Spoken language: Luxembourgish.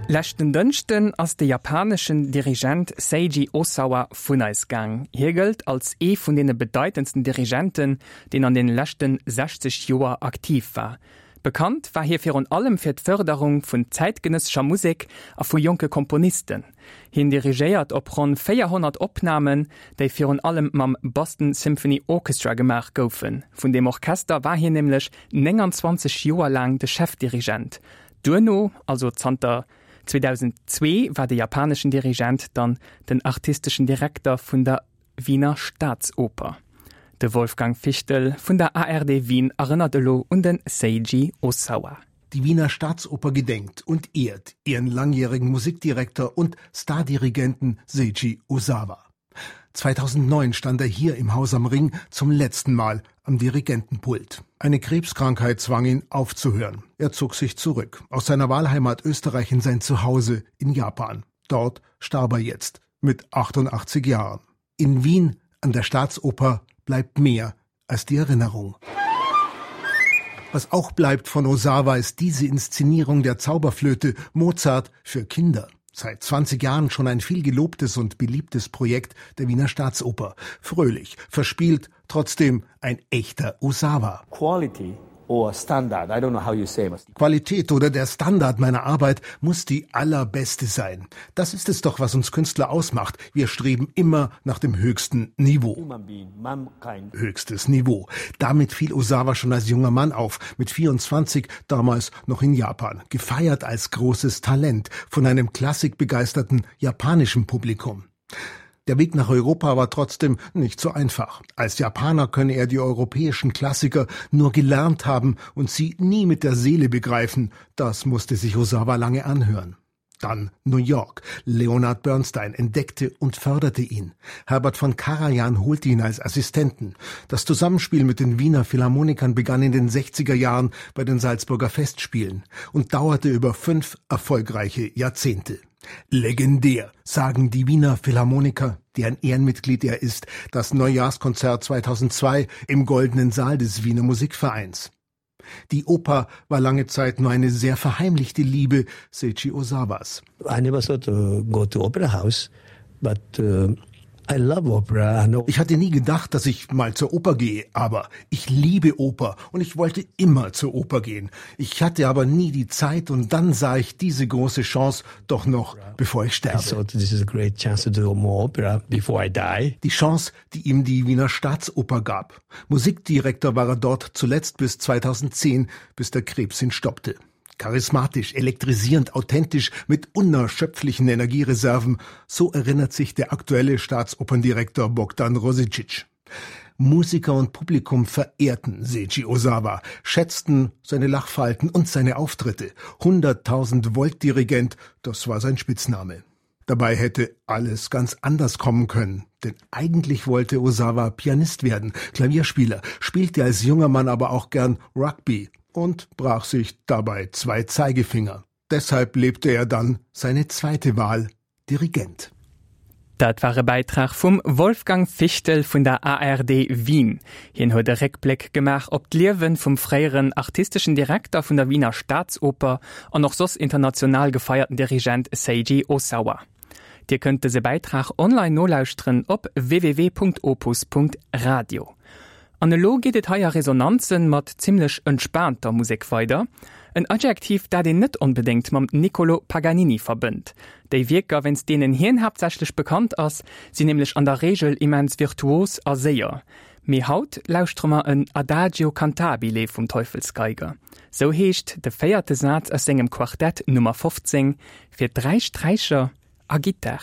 Leschten Dënschden ass de japaneschen Dirigent Seiji Osawa vun eis gaang. Hie gëllt als ee vun deene bedeitendsten Dirigenten, deen an deene leschten 60 Joer aktiv war. Bekannt war hie virun allem fir d'Fërderung vun zäitgenëssescher Musek a vu jonke Komponisten. Hien dirigéiert op ronn 400 Opnamen, déi virun allem mam Boston Symphony Orchestra gemaach goufen. Vun deem Orchester war hien nämlech 29 Joer laang de Chefdirigent. Duerno, also zanter 2002, war de japaneschen Dirigent dann den artisteschen Direkter vun der Wiener Staatsoper. De Wolfgang Fichtel vun der ARD Wien erënnert elo un de Seiji Osawa. Die Wiener Staatsoper gedenkt und ehrt ihren langjährigen Musikdirektor und Stardirigenten Seiji Osawa. 2009 stand er hier im Haus am Ring zum letzten Mal am Dirigentenpult. Eine Krebskrankheit zwang ihn aufzuhören. Er zog sich zurück aus seiner Wahlheimat Österreich in sein Zuhause in Japan. Dort starb er jetzt mit 88 Jahren. In Wien an der Staatsoper bleibt mehr als die Erinnerung. Was auch bleibt von Osawa ist diese Inszenierung der Zauberflöte Mozart für Kinder. Seit 20 Jahren schon ein viel gelobtes und beliebtes Projekt der Wiener Staatsoper. Fröhlich, verspielt, trotzdem ein echter Osawa. Quality or standard. I don't know how you say it. Qualität oder der Standard meiner Arbeit muss die allerbeste sein. Das ist es doch, was uns Künstler ausmacht. Wir streben immer nach dem höchsten Niveau. Höchstes Niveau. Damit fiel Osawa schon als junger Mann auf, mit 24, damals noch in Japan, gefeiert als großes Talent von einem klassikbegeisterten japanischen Publikum. Der Weg nach Europa war trotzdem nicht so einfach. Als Japaner könne er die europäischen Klassiker nur gelernt haben und sie nie mit der Seele begreifen. Das musste sich Osawa lange anhören. Dann New York. Leonard Bernstein entdeckte und förderte ihn. Herbert von Karajan holte ihn als Assistenten. Das Zusammenspiel mit den Wiener Philharmonikern begann in den 60er Jahren bei den Salzburger Festspielen und dauerte über fünf erfolgreiche Jahrzehnte. Legendär, sagen die Wiener Philharmoniker, deren Ehrenmitglied er ist, das Neujahrskonzert 2002 im Goldenen Saal des Wiener Musikvereins. Die Oper war lange Zeit nur eine sehr verheimlichte Liebe Seiji Osawas. I never thought to go to opera house, but uh, I love opera. Ich hatte nie gedacht, dass ich mal zur Oper gehe, aber ich liebe Oper und ich wollte immer zur Oper gehen. Ich hatte aber nie die Zeit und dann sah ich diese große Chance doch noch, bevor ich sterbe. I thought this is a great chance to do more opera before I die. Die Chance, die ihm die Wiener Staatsoper gab. Musikdirektor war er dort zuletzt bis 2010, bis der Krebs ihn stoppte. Charismatisch, elektrisierend, authentisch, mit unerschöpflichen Energiereserven, so erinnert sich der aktuelle Staatsoperndirektor Bogdan Rosicic. Musiker und Publikum verehrten Seiji Osawa, schätzten seine Lachfalten und seine Auftritte. 100.000 Volt Dirigent, das war sein Spitzname. Dabei hätte alles ganz anders kommen können, denn eigentlich wollte Osawa Pianist werden, Klavierspieler, spielte als junger Mann aber auch gern Rugby und brach sich dabei zwei Zeigefinger. Deshalb lebte er dann seine zweite Wahl, Dirigent. Dat war e Bäitrag vum Wolfgang Fichtel vun der ARD Wien. Hien huet e Réckbléck gemaach op d'Liewe vum fréieren artisteschen Direkter vun der Wiener Staatsoper an och soss international gefeierten Dirigent Seiji Osawa. Dir kënnt dëse Bäitrag online nolauschteren op www.opus.radio. An elo geet et hei a Resonanzen mat zimmlech entspaanter Musek weider. En Adjektiv, dat een net onbedéngt mam Niccolò Paganini verbënnt. Déi Wierker, wéinst deenen hien haaptsächlech bekannt ass, sinn nämlech an der Reegel immens virtuos a séier. Mee haut lauschtere mer en Adagio cantabile vum Teufelsgeiger. Sou heescht de véierte Saz aus sengem Quartett Nummer 15 fir 3 Sträicher a Gittar.